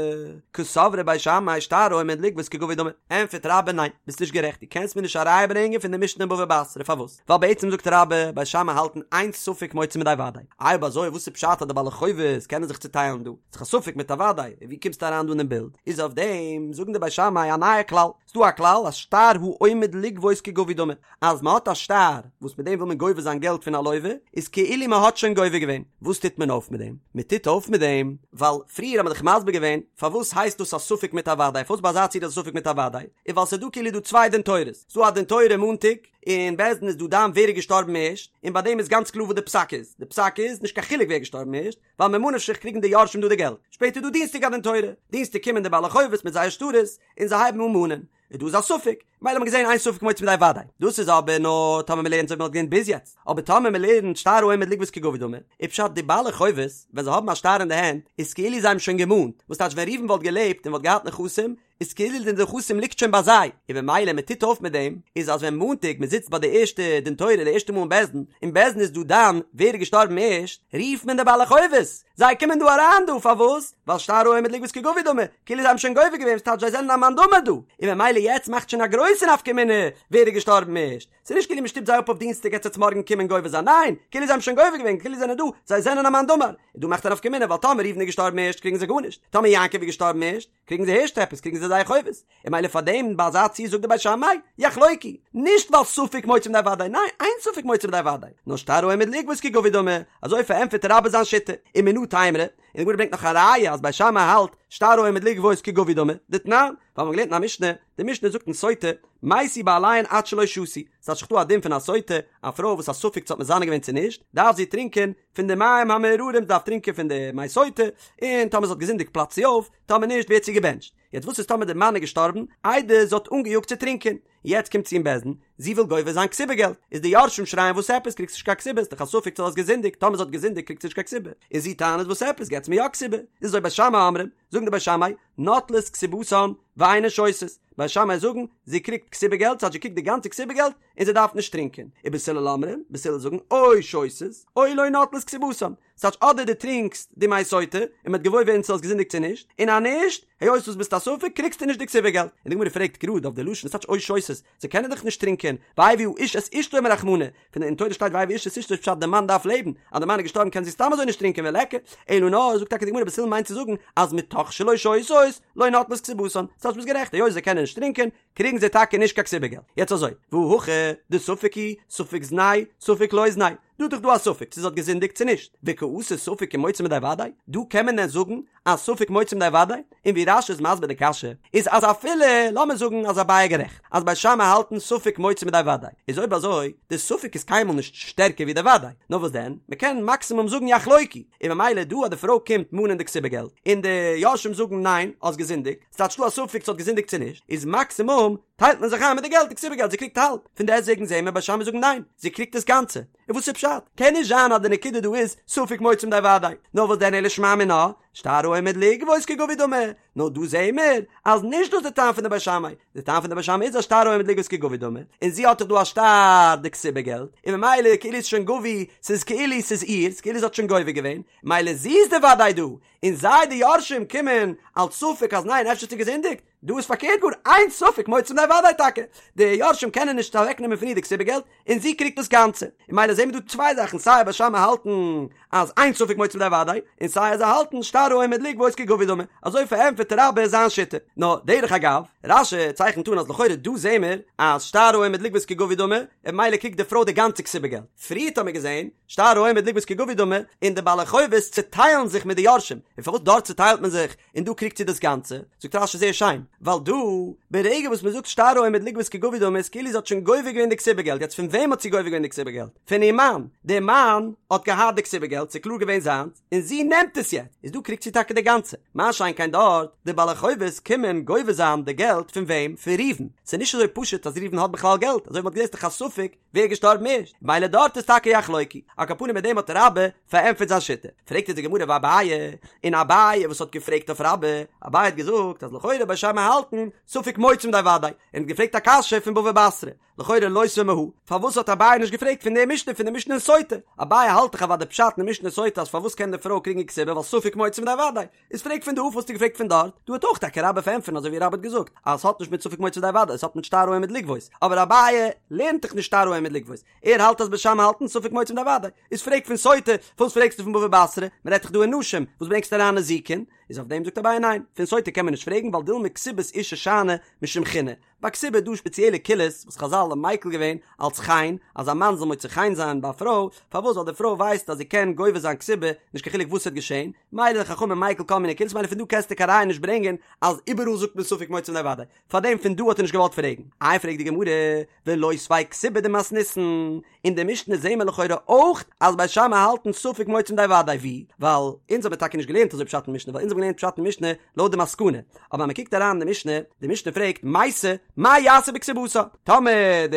קסברי בית שמאי שטר העומד לגבות כגבוי דמי. ענטפערט רבה, ניין, ביסט נישט גערעכט, דו קענסט מיר נישט א ראיה ברענגען פון די משנה אין בבא בתרא, פארוואס? ווייל בעצם זאגט רבה, בית שמאי האלטן אין ספק מוציא מידי וודאי. איי אויב אזוי וואס איז פשט אז די בעלי חובות קענען זיך צוטיילן דא? ס'איז דאך א ספק מיט א וודאי, און ווי קומסטו אריין דא אינעם בילד? איז אויף דעם זאגן די בית שמאי א נייע כלל, ס'דא א כלל אז שטר העומד לגבות כגבוי דמי, אז מ'האט א שטר וואס מיט דעם וויל מען גובה זיין געלט פון א לווה, איז כאילו מ'האט שוין גובה געווען. וואס טוט מען אויף מיט דעם? מ'טוט אויף מיט דעם, ווייל פריער האט מען דאך מסביר געווען פארוואס הייסט דאס א ספק מיט א וודאי, פארוואס ביי אזא ציור איז א ספק מיט א וודאי, איז ווייל ס'איז דא כאילו דא צוויי דין תורות, ס'דא א דין תורה מאנטאג, אין בית דין איז דא דן ווער איז געשטארבן ערשט, און ביי דעם איז גאנץ קלאר וואס די פסק איז, די פסק איז, נישט קיין חילוק ווער איז געשטארבן ערשט, ווייל ממה נפשך קריגן די יורשים דא די געלט. שפעטער איז דא דינסטאג א דין תורה, דינסטאג קומען די בעלי חובות מיט זייער שטרות, און זיי הייבן אן מאנען, און דא איז א ספק, מילא האט מען געזען אין ספק מוציא מידי וודאי, דאס איז אבער נאר טאמער מען לערנט אזוי ווי מען האט געלערנט ביז יעצט, אבער טאמער מען לערנט שטר העומד לגבות כגבוי דמי, איז פשט די בעלי חובות ווען זיי האבן א שטר אין די הענט איז כאילו זיי האבן שוין געמאנט, וואס טייטש ווען ראובן וואלט געלעבט און וואלט געהאט נכסים, איז כאילו די נכסים ליגט שוין ביי זיי, און במילא מען טוט אויף מיט דעם, איז אז ווען מאנטאג מען זיצט ביי די ערשטע דין תורה די ערשטע מאל אין בית דין, און בית דין איז דא דן ווער איז געשטארבן ערשט, רופט מען די בעלי חובות, זיי קומען דא אריין דא, פארוואס? ווייל שטר העומד לגבות כגבוי דמי, כאילו זיי האבן שוין גובה געווען, ס'טייטש זיי זענען א מאן דאמר דא, און במילא יעצט מאכט שוין א גרויסע נפקא מינה ווער איז געשטארבן ערשט, ס'איז נישט כאילו מען שטופט זיי אפ אויף דינסטאג עטס וועטס מארגן קומען גובה זיין, ניין, כאילו זיי האבן שוין גובה געווען, כאילו זיי זענען דא, זיי זענען א מאן דאמר, און דא מאכט א נפקא מינה ווייל טאמער ראובן איז געשטארבן ערשט קריגן זיי גארנישט, טאמער יעקב איז געשטארבן ערשט, קריגן זיי הערשט עפעס, קריגן זיי זייער חובות, און מילא פאר דעם ביי אזא ציור זאגט די בית שמאי, יחלוקו, נישט ווייל ספק מוציא מידי וודאי, ניין, אין ספק מוציא מידי וודאי, נאר שטר העומד לגבות כגבוי דמי, אזוי פארענטפערט רבה זיין שיטה, ומנא תימרא, און די גמרא ברענגט נאך א ראיה אז בית שמאי האלט שטר העומד לגבות כגבוי דמי, דתנן, ווייל מ'האט געלערנט אין א משנה, די משנה זאגט אין סוטה, מתו בעליהן עד שלא שתו, ס'טייטש ס'איז דא א דין פון א סוטה, א פרוי וואס א ספק צו האט מזנה געווען צו נישט, דארף זי טרינקען פון די מים המאררים דארף טרינקען פון די מי סוטה, און טאמער זי האט געזינדיגט פלאצט זי אויף, טאמער נישט ווערט זי געבענטשט. יעצט וואס איז טאמער די מאן איז געשטארבן איידער זי האט אנגעיאגט צו טרינקען? יעצט קומט זי אין בית דין, זי וויל גובה זיין כתובה געלט, איז די יורשים שרייען וואס עפעס קריגסט נישט קיין כתובה, ס'דאך א ספק צו האסט געזינדיגט, טאמער זי האט געזינדיגט קריגט זי נישט קיין כתובה, און זי טענה'ט וואס עפעס געטס מיר יא כתובה, איז אזוי בית שמאי אומרים. זאגן די בית שמאי, נוטלות כתובתן ואינן שותות, בית שמאי זאגן, זי קריגט כתובה געלט, ס'טייטש זי קריגט די גאנצע כתובה געלט, און זי דארף נישט טרינקען. ובית הלל אומרים, בית הלל זאגן, או שותות, או לא נוטלות כתובתן. ס'טייטש אדער דו טרינקסט די מי סוטה, און מ'וועט געוואויר ווערן צו האסט געזינדיגט צו נישט, און אז נישט, היות וואס ביסט א ספק, קריגסטו נישט די כתובה געלט. און די גמרא פרעגט גראד אויף די לשון, ס'טייטש או שותות, זיי קענען דאך נישט טרינקען, והביא האיש את אשתו אמר רחמנא, פון אין תורה שטייט והביא האיש את אשתו איז פשט די מאן דארף לעבן, אז די מאן איז געשטארבן קען זי סתם אזוי נישט טרינקען וליכא, אלא נאר זאגט טאקע די גמרא בית הלל מיינט צו זאגן אז מתוך שלא שותות לא נוטלות כתובתן, ס'טייטש ביסט גערעכט היות זיי קענען נישט טרינקען קריגן זיי טאקע נישט קיין כתובה געלט, יעצט אזוי, והא הכא דספק הוא, ספק זנאי, ספק לא זנאי, דא איז דאך דא א ספק צו זי האט געזינדיגט צו נישט, וקאתי ספק ומוציא מידי וודאי, דא קען מען דען זאגן אז ספק מוציא מידי וודאי? און ווי רש"י איז מסביר די קשיא, איז אז אפילו, לאמיר זאגן אז אביי איז גערעכט, אז בית שמאי האלטן ספק מוציא מידי וודאי, איז אויב אזוי, די ספק איז קיינמאל נישט שטערקער ווי די וודאי, נאר וואס דען, מ'קען מאקסימום זאגן יחלוקו, און ממילא דא אז די פרוי קומט מאנען די כתובה געלט, און די יורשים זאגן ניין, האסט געזינדיגט, ס'טייטש דא א ספק צו האט געזינדיגט צו נישט, איז מאקסימום טיילט מען זיך איין מיט די געלט, די כתובה געלט, זי קריגט האלב, פון דעסטוועגן זעהן מיר בית שמאי זאגן ניין, זי קריגט דאס גאנצע. און וואס איז פשט? קען נישט זיין אז די נקודה דא איז ספק מוציא מידי וודאי, נאר וואס דען אלא שמע מינה, שטר העומד לגבות כגבוי דמי, נאר דא זעהן מיר אז נישט דאס איז די טעם פון די בית שמאי, די טעם פון די בית שמאי איז אז שטר העומד לגבות כגבוי דמי, און זי האט דאך דא א שטר די כתובה געלט, און ממילא כאילו איז שוין גבוי, ס'איז כאילו ס'איז איר'ס, כאילו זי האט שוין גובה געווען, ממילא זי איז די וודאי דא, און זיי די יורשים קומען אלס ספק אז ניין אפשר האט זי געזינדיגט, דא איז פארקערט גאר, אין ספק מוציא מידי וודאי טאקע, די יורשים קענען נישט אוועק נעמען פון איר די כתובה געלט, און זי קריגט דאס גאנצע, און ממילא זעהן מיר דא צוויי זאכן סיי בית שמאי האלטן אז אין ספק מוציא מידי וודאי, און סיי אז זיי האלטן שטר העומד לגבות כגבוי דמי, אזוי פארענטפערט רבה זיין שיטה. נאר דרך אגב, רש"י צייכנט אן אז לכאורה דא זעהן מיר אז שטר העומד לגבות כגבוי דמי, און ממילא קריגט די פרוי די גאנצע כתובה געלט, פריערט האמיר געזעהן שטר העומד לגבות כגבוי דמי, און די בעלי חובות צעטיילן זיך מיט די יורשים, און פארוואס דארט צעטיילט מען זיך און דא קריגט זי דאס גאנצע? זאגט רש"י זייער שיין, ווייל דא, ברגע וואס מען זאגט שטר העומד לגבות כגבוי דמי איז כאילו זי האט שוין גובה געווען די כתובה געלט, יעצט פון וועם האט זי גובה געווען די כתובה געלט? פון איר מאן, דער מאן האט געהאט די כתובה געלט, ס'איז קלאר געווען זיינס, און זי נעמט עס יעצט, איז דא קריגט זי טאקע די גאנצע, מה שאין כן דארט, די בעלי חובות קומען גובה זיין די געלט פון וועם? פון ראובן, ס'איז נישט אזוי פשוט אז ראובן האט בכלל געלט, אזוי ווי מ'האט געזען איז דאך א ספק ווער איז געשטארבן ערשט, מילא דארט איז טאקע יחלוקו, על כל פנים מיט דעם האט רבה פארענטפערט זיין שיטה, פרעגט אונז די גמרא ואביי, און אביי וואס האט געפרעגט אויף רבה, אביי האט געזאגט אז לכאורה בית שמאי האלטן ספק מוציא מידי וודאי, און האט געפרעגט א קשיא פון בבא בתרא, לכאורה לותביה מהא, פארוואס האט אביי נישט געפרעגט פון די משנה פון די משנה אין סוטה, אביי האלט דאך אוודאי פשט אין די משנה סוטה אז פארוואס קען די פרוי קריגן כתובה ווייל ספק מוציא מידי וודאי, איז פרעג פון דא פארוואס האסטו געפרעגט פון דארט, דא האט אויך טאקע רבה פארענטפערן אזוי ווי רבה האט געזאגט אז עס האט נישט מיט ספק מוציא מידי וודאי עס האט מיט שטר העומד לגבות, אבער אביי לערנט דאך נישט שטר העומד לגבות, ער האלט אז בית שמאי האלטן ספק מוציא מידי וודאי, איז פרעג פון סוטה, פארוואס פרעגסטו פון בבא בתרא, מען רעדט דאך דא אין נשים, וואס ברענגסטו אריין נזיקין, איז אויף דעם זאגט אביי ניין, פון סוטה קען מען נישט פרעגן ווייל דילמא כתובת אשה שאני משום חינא, ביי כתובה איז דא שפעציעלע קולות וואס חזל האבן מיקל געווען אלץ חן, אז א מאן זאל מוצא חן זיין ביי א פרוי, פארוואס ווייל די פרוי ווייסט אז זי קען גובה זיין כתובה, נישט קיין חילוק וואס ס'וועט געשען, מילא די חכמים מיקל כל מיני קולות, מילא פון דא קענסטו קיין ראיה נישט ברענגען אז איבעראל זאגט מען ספק מוציא מידי וודאי, פארדעם פון דא האט ער נישט געוואלט פרעגן. איי פרעגט די גמרא, ולותביה כתובה דמתניתין, אין די משנה זעהן מיר לכאורה אויך אז בית שמאי האלטן ספק מוציא מידי וודאי ווי, ווייל אונז האבן טאקע נישט געלערנט אזוי פשט אין משנה ווייל אונז האבן געלערנט פשט אין משנה לויט די מסקנא, אבער אז מען קוקט אריין אין די משנה, די משנה פרעגט מתה מה יעשה בכתובתה, טאמער די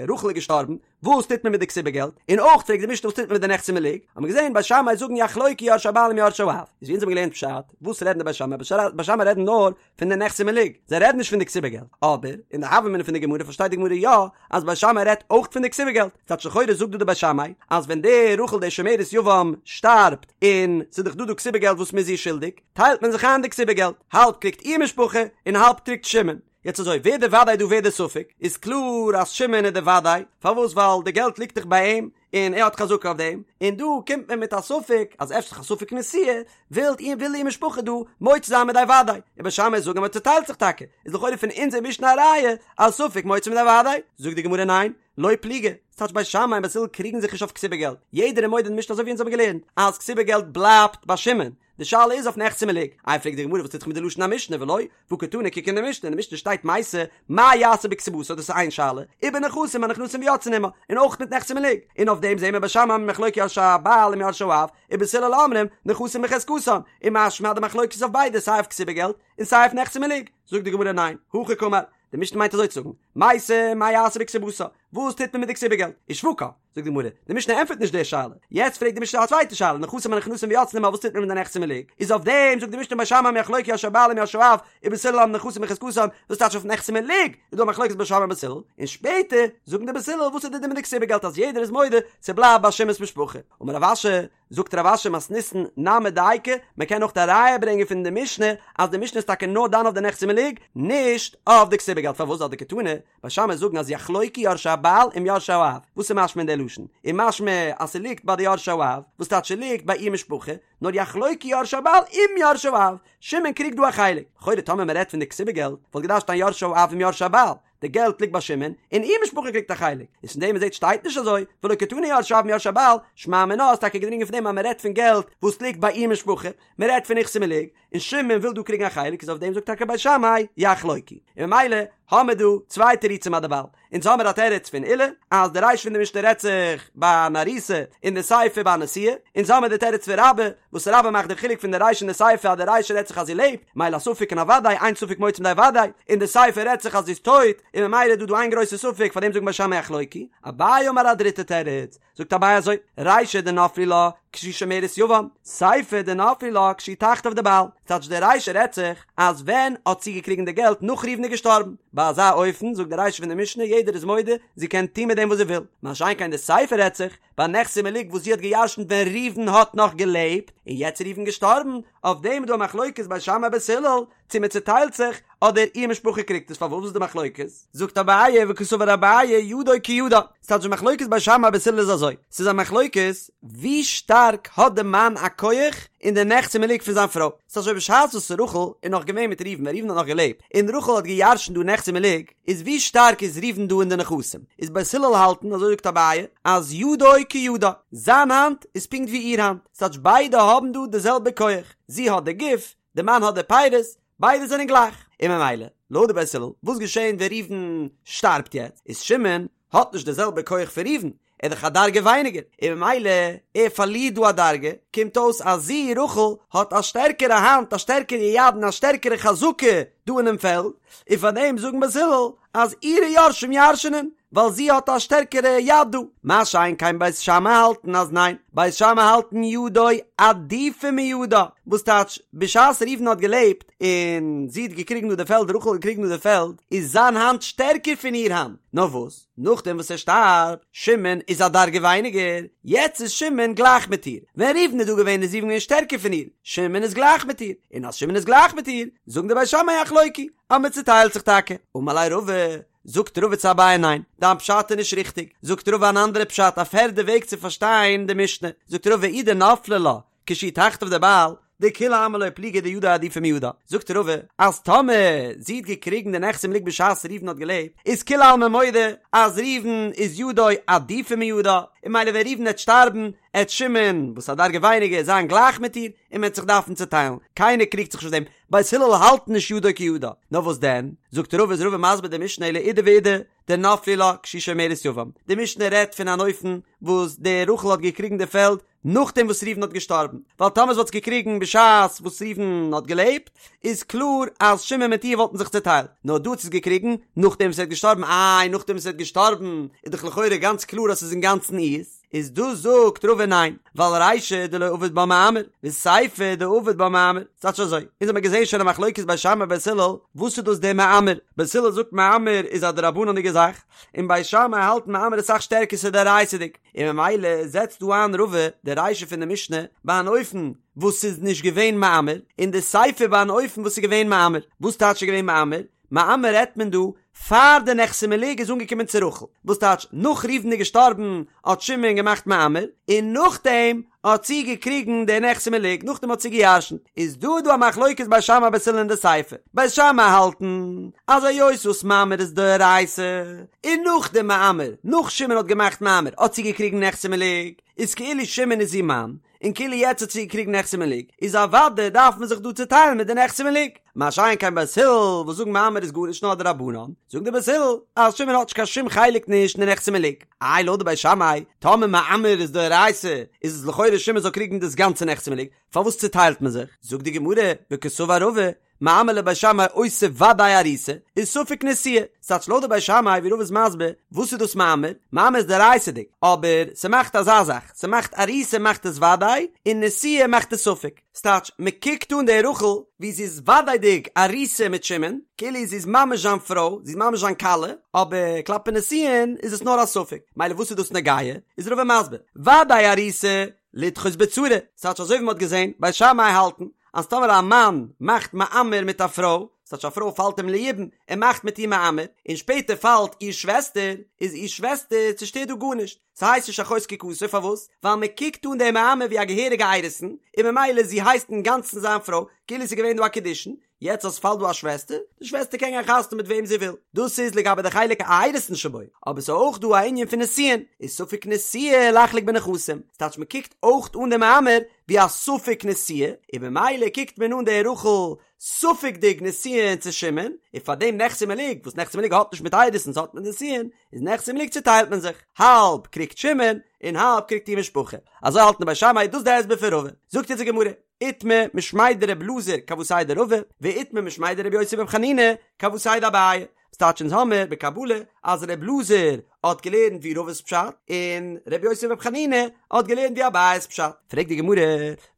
רחל איז געשטארבן וואס טוט מען מיט די כתובה געלט, און אויך פרעגט די משנה וואס טוט מען מיט די נכסי מלוג, האט מען געזעהן בית שמאי זאגן יחלוקו יורשי הבעל עם יורשי האב, איז ווי אונז האבן געלערנט פשט, וואס רעדן די בית שמאי, בית שמאי רעדן נאר פון די נכסי מלוג, זיי רעדן נישט פון די כתובה געלט, אבער אין די הוה אמינא פון די גמרא פארשטייט די גמרא יא אז בית שמאי רעדט אויך פון די כתובה געלט, ס'טייטש לכאורה זאגט דא די בית שמאי אז ווען די רחל די שומרת יבם שטארבט און ס'איז דאך דא דא כתובה געלט וואס מ'איז איר שולדיג, טיילט מען זיך איין די כתובה געלט, האלב קריגט איר משפחה און האלב קריגט שמעון. יעצט אזוי, ווער די וודאי דא ווער די ספק, איז קלאר אז שמעון איז די וודאי, פארוואס ווייל די געלט ליגט דאך ביי אים, און ער האט חזקה אויף דעם, און דא קומט מען מיט א ספק אז אפשר א ספק נשואה, וויל איר וויל איר משפחה דא מוציא זיין מידי וודאי, און בית שמאי זאגן אז מען צוטיילט זיך טאקע, איז לכאורה פון אונזער משנה א ראיה אז ספק מוציא מידי וודאי, זאגט די גמרא ניין, לא פליגי, ס'טייטש בית שמאי און בית הלל קריגן זיך נישט אויף כתובה געלט, יעדער איז מודה אין די משנה אזוי ווי אונז האבן געלערנט אז כתובה געלט בלייבט ביי שמעון, די שאלה איז אויף נכסי מלוג. איי פרעגט די גמרא וואס טוט זיך מיט די לשון המשנה ולא, והא קתני קוק אין די משנה, אין די משנה שטייט מתה, מה יעשה בכתובתה דאס איז איין שאלה, ובנכסים הנכנסים ויוצאין עמה, און אויך מיט נכסי מלוג, און אויף דעם זעהן מיר בית שמאי אומרים יחלוקו יורשי הבעל עם יורשי האב, ובית הלל אומרים נכסים בחזקתן, און משמע אז די מחלוקת איז אויף ביידע סיי אויף כתובה געלט און סיי אויף נכסי מלוג, זאגט די גמרא ניין, הכי קאמר, די משנה מיינט אזוי צו זאגן, מתה מה יעשה בכתובתה? וואס טוט מען מיט די כתובה געלט? ושווקה, זאגט די גמרא, די משנה ענטפערט נישט די שאלה, יעצט פרעגט די משנה א צווייטע שאלה, נכסים הנכנסים ויוצאין עמה, וואס טוט מען מיט די נכסי מלוג? איז אויף דעם זאגט די משנה בית שמאי יחלוקו יורשי הבעל עם יורשי האב, ובית הלל הנכסים בחזקתן, וואס טייטש אויף נכסי מלוג איז דא א מחלוקת בית שמאי און בית הלל, און שפעטער זאגן די בית הלל וואס איז די דין מיט די כתובה געלט אז יעדער איז מודה ס'בלייבט ביי שמעון'ס משפחה, אמר רב אשי, זאגט רב אשי מתניתין נמי דייקא, מען קען אויך א ראיה ברענגען פון די משנה אז די משנה איז טאקע נאר דן אויף די נכסי מלוג, נישט אויף די כתובה געלט, פארוואס ווייל דקתני, בית שמאי זאגן אז יחלוקו יורשי הבעל עם יורשי האב, וואס איז משמע אין די לשון? איז משמע אז ס'ליגט ביי די יורשי האב, וואס טייטש ס'ליגט ביי איר משפחה, נאר יחלוקו יורשי הבעל עם יורשי האב, שמעון קריגט דא א חלק, לכאורה טאמער מען רעדט פון די כתובה געלט, וואלט געדארפט שטיין יורשי האב עם יורשי הבעל, די געלט ליגט ביי שמעון, און איר משפחה קריגט א חלק, איז פון דעם מ'זעט שטייט נישט אזוי, ולא קתני יורשי האב עם יורשי הבעל, שמע מינה איז טאקע געדרינגען פון דעם אז מען רעדט פון געלט וואס ליגט ביי איר משפחה, מען רעדט פון נכסי מלוג, און שמעון וויל דא קריגן א חלק איז אויף דעם זאגט טאקע בית שמאי יחלוקו, און ממילא האמער דא צוויי תירוצים אדערווייל, אונז האמער א תירוץ פון עולא אז די רישא פון די משנה רעדט זיך ביי אן ארוסה און די סיפא ביי א נשואה, אונז האמער די תירוץ פון רבה וואס רבה מאכט די חילוק פון די רישא און די סיפא אז די רישא רעדט זיך אז זי לעבט, מילא א ספק און א ודאי, אין ספק מוציא מידי ודאי, און די סיפא רעדט זיך אז זי איז טויט, און ממילא איז דא דא איין גרויסע ספק פאר דעם זאגן בית שמאי יחלוקו. אביי אמר א דריטע תירוץ, זאגט אביי אזוי, רישא דנפלו לה כשהיא שומרת יבם, סיפא דנפלו לה כשהיא תחתיו דבעל, ס'טייטש די רישא רעדט זיך אז ווען האט זי געקריגן די געלט נאך ראובן איז געשטארבן, ביי אזא אופן זאגט די רישא פון די משנה יעדער איז מודה זי קען טון מיט דעם וואס זי וויל, מה שאין כן די סיפא רעדט זיך ביי נכסי מלוג וואס זי האט גע'ירש'נט ווען ראובן האט נאך געלעבט, און יעצט איז ראובן געשטארבן, אויף דעם איז דא א מחלוקת בית שמאי בית הלל, צו מען צוטיילט זיך, אדער איר משפחה קריגט עס, פארוואס איז די מחלוקת? זאגט אביי וקסבר אביי ידו כידה, ס'טייטש די מחלוקת בית שמאי בית הלל איז אזוי, ס'איז א מחלוקת ווי שטארק האט די מאן א כח אין די נכסי מלוג פון זיין פרוי, ס'טייטש אזוי בשעת וואס רחל איז נאך געווען מיט ראובן ווען ראובן האט נאך געלעבט און רחל האט גע'ירש'נט דא נכסי מלוג, איז ווי שטארק איז ראובן דא אין די נכסים? איז בית הלל האלטן, אזוי זאגט אביי, אז ידו כידה, זיין האנט איז פונקט ווי איר האנט, ס'טייטש ביידע האבן דא די זעלבע כח, זי האט די גוף, די מאן האט די פירות, ביידע זענען גלייך, און ממילא, לויט די בית הלל, וואס געשען ווען ראובן שטארבט יעצט, איז שמעון האט נישט די זעלבע כח פון ראובן, ער איז דאך א דרגה ווייניגער, און ממילא ער פארלירט דא א דרגה, קומט אויס אז זי, רחל, האט א שטערקערע האנט, א שטערקערע יד און א שטערקערע חזקה דא אינעם פעלד, און פאר דעם זאגן בית הלל אז אירע יורשים ירש'נען, ווייל זי האט א שטערקערע יד דא. מה שאין כן בית שמאי האלטן אז ניין, בית שמאי האלטן ידו עדיפא מידה, וואס טייטש, בשעת ראובן האט געלעבט און זי האט געקריגן דא די פעלד, רחל האט געקריגן דא די פעלד, איז זיין האנט שטערקער פון איר האנט, נאר וואס? נאכדעם וואס ער שטארבט, שמעון איז א דרגה ווייניגער, יעצט איז שמעון גלייך מיט איר, ווען ראובן איז דא געווען איז ראובן געווען שטערקער פון איר, שמעון איז גלייך מיט איר, און אז שמעון איז גלייך מיט איר, זאגן די בית שמאי יחלוקו, אז מען צוטיילט זיך טאקע. אמר ליה רבא, זאגט רבא צו אביי ניין, דיין פשט איז נישט ריכטיג, זאגט רבא אן אנדערע פשט א פערדע וועג צו פארשטיין די משנה, זאגט רבא אי דנפלה לה, כשהוא תחתיו דבעל, דכולי עלמא לא פליגי דידו עדיפא מידה, זאגט רבא אז טאמער זי האט געקריגן די נכסי מלוג בשעת ראובן האט געלעבט, איז כולי עלמא מודה אז ראובן איז ידו עדיפא מידה, און ממילא ווען ראובן עט שטארבן עט שמעון וואס א דרגה ווייניגער זיין גלייך מיט איר, און מען עט זיך דארפן צוטיילן, קיינער קריגט זיך נישט אויף דעם, בית הלל האלט נישט ידו כידה, נאר וואס דען, זאגט רבא איז רבא מסביר די משנה אלא אידי ואידי, דנפלו לה כשהיא שומרת יבם, די משנה רעדט פון אן אופן וואס די רחל האט געקריגן די פעלד נאכדעם וואס ראובן האט געשטארבן, ווייל טאמער זי וואלט עס געקריגן בשעת וואס ראובן האט געלעבט, איז קלאר אז שמעון מיט איר וואלטן זיך צעטיילט, נאר דא האט זי עס געקריגן נאכדעם וואס ער האט געשטארבן, איי נאכדעם וואס ער האט געשטארבן איז דאך לכאורה גאנץ קלאר אז ס'איז אינגאנצן אירס, איז דא זאגט רבא ניין, ווייל רישא דלא עביד בה מאמר, וסיפא דעביד בה מאמר, ס'טייטש אזוי, אונז האמיר געזען שוין א מחלוקת בית שמאי בית הלל, וואס איז דאס דער מאמר, בית הלל זאגט מאמר איז א דרבנן'דיגע זאך, און בית שמאי האלט מאמר איז אסאך שטערקער ס'איז דאורייתא'דיג. און ממילא זעצט דא איין רבא די רישא פון די משנה ביי אן אופן וואס ס'איז נישט געווען מאמר, און די סיפא ביי אן אופן וואס ס'איז געווען מאמר. וואס טייטש ס'איז געווען מאמר? מאמר רעדט מען דא פאר די נכסי מלוג איז אנגעקומען צו רחל, וואס טייטש נאך ראובן איז געשטארבן האט שמעון געמאכט מאמר, און נאכדעם האט זי געקריגן די נכסי מלוג, נאכדעם האט זי געירשנט, איז דא דא א מחלוקת בית שמאי בית הלל אין די סיפא, בית שמאי האלטן אז היות וואס מאמר איז דאורייתא, און נאך די מאמר, נאך שמעון האט געמאכט מאמר האט זי געקריגן נכסי מלוג, איז כאילו שמעון איז איר מאן, און כאילו יעצט האט זי געקריגן נכסי מלוג, איז אוודאי דארף מען זיך דא צוטיילן מיט די נכסי מלוג. מה שאין כן בית הלל וואס זאגן מאמר איז גארנישט נאר דרבנן, זאגן די בית הלל אז שמעון האט נישט קיין שום חלק נישט אין די נכסי מלוג. איי לויט די בית שמאי, טאמער מאמר איז דאורייתא, איז עס לכאורה שמעון זאל קריגן דאס גאנצע נכסי מלוג, פארוואס צוטיילט מען זיך? זאגט די גמרא, וקסבר רבא, מאמר לבית שמאי עושה ודאי ארוסה, וספק נשואה, ס'טייטש לויט די בית שמאי ווי רבא איז מסביר, וואס איז דאס מאמר? מאמר איז דאורייתא'דיג, אבער ס'מאכט אזא זאך, ס'מאכט ארוסה מאכט עס ודאי, און נשואה מאכט עס ספק. ס'טייטש, מ'קוקט אן די רחל ווי זי איז וודאי'דיג ארוסה מיט שמעון, כאילו זי איז ממש זיין פרוי, זי איז ממש זיין כלה, אבער כלפי נישואין איז עס נאר א ספק. מילא וואס איז דאס נוגע? איז רבא מסביר, ודאי ארוסה לדחות בצרה, ס'טייטש אזוי ווי מ'האט געזען, בית שמאי האלטן אז טאמער א מאן מאכט מאמר מיט א פרוי, ס'טייטש א פרוי פאלט אים ליבום, ער מאכט מיט איר מאמר, און שפעטער פאלט איר שוועסטער, איז איר שוועסטער צושטערט דא גארנישט, ס'הייסט נישט אחות זקוקתו, פארוואס? ווייל מ'קוקט אן די מאמר ווי א געהעריגע אירוסין, און ממילא זי הייסט אינגאנצן זיין פרוי, כאילו ס'איז געווען דא א קידושין, יעצט אז ס'פאלט דא א שוועסטער, די שוועסטער קען גיין חתונה מיט וועם זי וויל, דאס איז לגבי די חלק האירוסין שבו, אבער ס'איז אויך דא א ענין פון נישואין, איז ספק נשואה לחלוק בנכסים, ס'טייטש מ'קוקט אויך אן די מאמר ווי א ספק נשואה, און במילא קוקט מען אן די רחל ספק'דיג נישואין צו שמעון, און פאר דעם נכסי מלוג, וואס נכסי מלוג האט נישט מיט אירוסין ס'האט מיט נישואין, איז נכסי מלוג צוטיילט מען זיך, האלב קריגט שמעון, און האלב קריגט איר משפחה, אזוי האלטן די בית שמאי, דאס די הסבר פון רבא, זאגט אונז די גמרא. איתמר משמיה דר' אלעזר כוותיה דרבא, ואיתמר משמיה דר' יוסי בר' חנינא כוותיה דאביי. ס'טייטש אונז האמיר בקבלה אז ר' אלעזר האט געלערנט ווי רבא'ס פשט, און ר' יוסי בר' חנינא האט געלערנט ווי אביי'ס פשט. פרעגט די גמרא,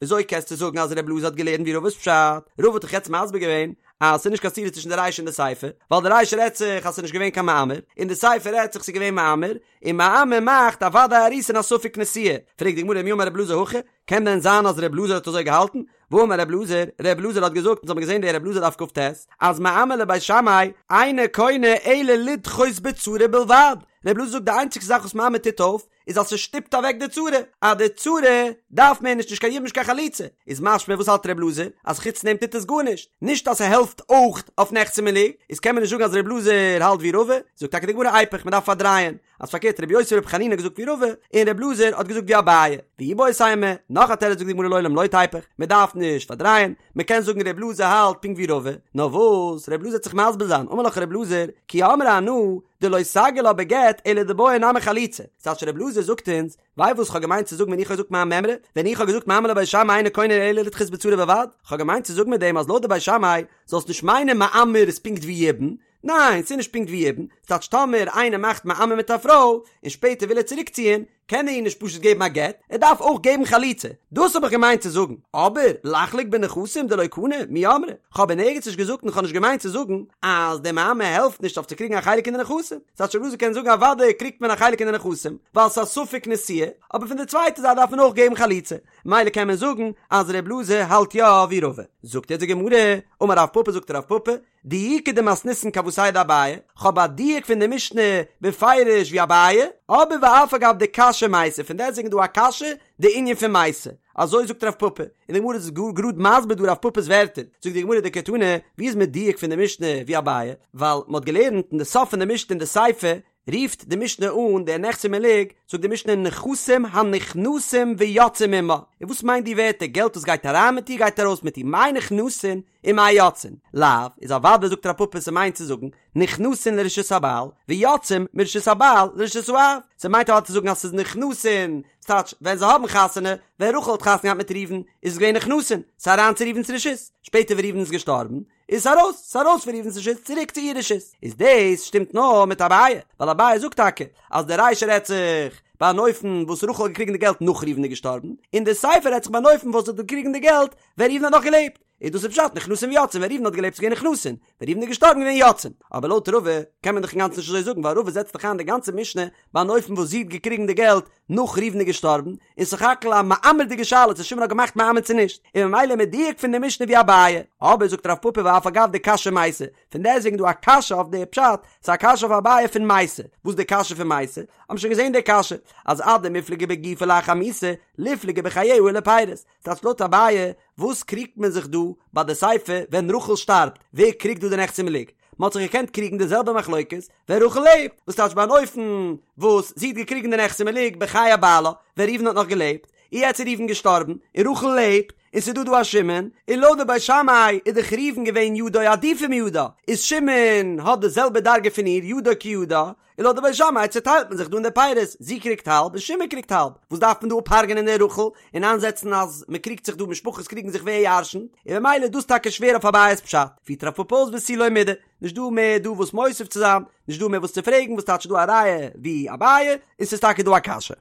וויאזוי קענסטו זאגן אז ר' אלעזר האט געלערנט ווי רבא'ס פשט? רבא האט דאך יעצט מסביר געווען אז ס'איז נישט קיין סתירה צווישן די רישא און די סיפא, ווייל די רישא רעדט זיך אז ס'איז נישט געווען קיין מאמר, און די סיפא רעדט זיך ס'איז געווען מאמר, און מאמר מאכט א ודאי ארוסה און א ספק נשואה. פרעגט די גמרא מי אמר ר' אלעזר הכי? קען דען זיין אז ר' אלעזר האט אזוי געהאלטן? והאמר ר' אלעזר, ר' אלעזר האט געזאגט, אונז האבן געזען די ר' אלעזר דף כ"ט, אז מאמר לבית שמאי אינו קונה אלא לדחות בצרה בלבד, ר' אלעזר זאגט די איינציגסטע זאך וואס מאמר טוט אויף, איז אז ס'שטופט אוועק די צרה, אז די צרה דארף מער נישט נישט קיין יבום נישט קיין חליצה, איז משמע וואס האלט ר' אלעזר? אז חוץ דעם טוט עס גארנישט, נישט אז ס'העלפט אויך אויף נכסי מלוג, איז קען מען נישט זאגן אז ר' אלעזר האלט ווי רבא, זאגט טאקע די גמרא איפוך, מ'דארף פארדרייען, אז פארקערט רבי יוסי ברבי חנינא האט געזאגט ווי רבא, און רבי אלעזר האט געזאגט ווי אביי, ואיבעית אימא, נאך א תירוץ זאגט די גמרא לעולם לא תיפוך, מען דארף נישט פארדרייען, מען קען זאגן רבי אלעזר האלט פונקט ווי רבא, נאר וואס רבי אלעזר וועט זיך מסביר זיין, אמר לך רבי אלעזר, כי אמרי אנא, דלא סגי לה בגט אלא דבעיא נמי חליצה, ס'טייטש רבי אלעזר זאגט אונז, ווייסט וואס כ'האב געמיינט צו זאגן ווען איך האב געזאגט מיין מימרא, ווען איך האב געזאגט מאמר לבית שמאי אינו קונה אלא לדחות בצרה בלבד, כ'האב געמיינט צו זאגן מיט דעם אז לויט די בית שמאי זאלסט נישט מיינען מאמר איז פונקט ווי יבום, ניין, ס'איז נישט פונקט ווי יבום, ס'טייטש טאמער איינער מאכט מאמר מיט א פרוי, און שפעטער וויל ער צוריקציען, קען ער איר נישט פשוט געבן א גט, ער דארף אויך געבן חליצה, דאס האב איך געמיינט צו זאגן, אבער לחלוק בנכסים דלא קני, מי אמרי, כ'האב אין ערגעץ נישט געזאגט און כ'האב נישט געמיינט צו זאגן אז די מאמר העלפט נישט אויף צו קריגן א חלק אין די נכסים, ס'טייטש ר' אלעזר קען זאגן אוודאי קריגט מען א חלק אין די נכסים, ווייל ס'איז א ספק נשואה, אבער פון די צווייטע זייט דארף מען אויך געבן חליצה, מילא קען מען זאגן אז ר' אלעזר האלט יא ווי רבא. זאגט יעצט די גמרא, אמר רב פפא זאגט רב פפא, דיוקא דמתניתין כוותיה דאביי, כ'האב א דיוק פון די משנה בפירוש ווי אביי, אבער ואף על גב דקשיא מתה, פון דעסטוועגן איז דא א קשיא די ענין פון מתה, אזוי זאגט רב פפא, און די גמרא איז גאר גראד מסביר דא רב פפא'ס ווערטער, זאגט די גמרא דקתני, ווי איז מדויק פון די משנה ווי אביי, ווייל מ'האט געלערנט אין די סוף פון די משנה אין די סיפא, רופט די משנה אן די נכסי מלוג, זאגט די משנה נכסים הנכנסים ויוצאים עמה, און וואס מיינט די ווערטער געלט וואס גייט אריין מיט איר גייט ארויס מיט איר, מאי נכנסין ומאי יוצאין, לאו, איז אוודאי זאגט רב פפא ס'מיינט צו זאגן נכנסין לרשות הבעל ויוצאים מרשות הבעל לרשות האב, ס'מיינט אוודאי צו זאגן אז ס'איז נכנסין, ס'טייטש ווען זיי האבן חתונה, ווען רחל האט חתונה געהאט מיט ראובן איז עס געווען נכנסין, ס'איז אריין צו ראובן'ס רשות, שפעטער ווען ראובן איז געשטארבן איז ארויס, ס'איז ארויס פון ראובן'ס רשות צוריק צו איר רשות. איז דאס שטימט נאר מיט אביי, ווייל אביי זאגט טאקע אז די רישא רעדט זיך ביי אן אופן וואס רחל האט געקריגן די געלט נאך ראובן איז געשטארבן, און די סיפא רעדט זיך ביי אן אופן וואס זי האט געקריגן די געלט ווען ראובן האט נאך געלעבט. איז דאס איז פשט נכנסין ויוצאין, ווען ראובן האט געלעבט איז געווען נכנסין, ווען ראובן איז געשטארבן געווען יוצאין. אבער לויט רבא קען מען דאך אינגאנצן נישט אזוי זאגן ווייל רבא זעצט דאך איין די גאנצע משנה ביי אן אופן וואס זי האט געקריגן די געלט נאך ראובן איז געשטארבן, און סך הכל א מאמר'דיגע שאלה צו שמעון האט געמאכט מאמר צו נישט, און ממילא מדויק פון די משנה ווי אביי. אבער זאגט רב פפא ואף על גב דקשיא מתה, פון דעסטוועגן דא א קשיא אויף די פשט, ס'איז א קשיא אויף אביי פון מתה, וואס די קשיא פון מתה? האבן שוין געזען די קשיא, אז אדמיפלגי בגופה לאחר מיתה, ליפלגי בחייה ולפירות, ס'טייטש לויט אביי, וואס קריגט מען זיך דא ביי די סיפא ווען רחל שטארבט, ווער קריגט דא די נכסי מלוג? מען האט זיך געקענט קריגן די זעלבע מחלוקת ווען רחל לעבט, וואס טייטש ביי אן אופן וואס זי האט געקריגן די נכסי מלוג בחיי בעלה ווען ראובן האט נאך געלעבט, און יעצט איז ראובן געשטארבן, און רחל לעבט, און ס'איז דא דא א שמעון, און לויט די בית שמאי איז דאך ראובן געווען ידו עדיפא מידה, איז שמעון האט די זעלבע דרגה פון איר, ידו כידה, און לויט די בית שמאי צעטיילט מען זיך דא אין די פירות, זי קריגט האלב און שמעון קריגט האלב, וואס דארף מען דא אפ'הרג'ענען די רחל און איינזעצן אז מען קריגט זיך דא, משפחות קריגן זיך ווער ירש'נט, און במילא איז דאס טאקע שווער אויף אביי'ס פשט, פירט רב פפא אויס ותו לא מידי, נישט דא מער דא וואס מוסיף צו זיין, נישט דא מער וואס צו פרעגן, וואס טייטש דא א ראיה ווי אביי, און ס'איז טאקע דא א קשיא.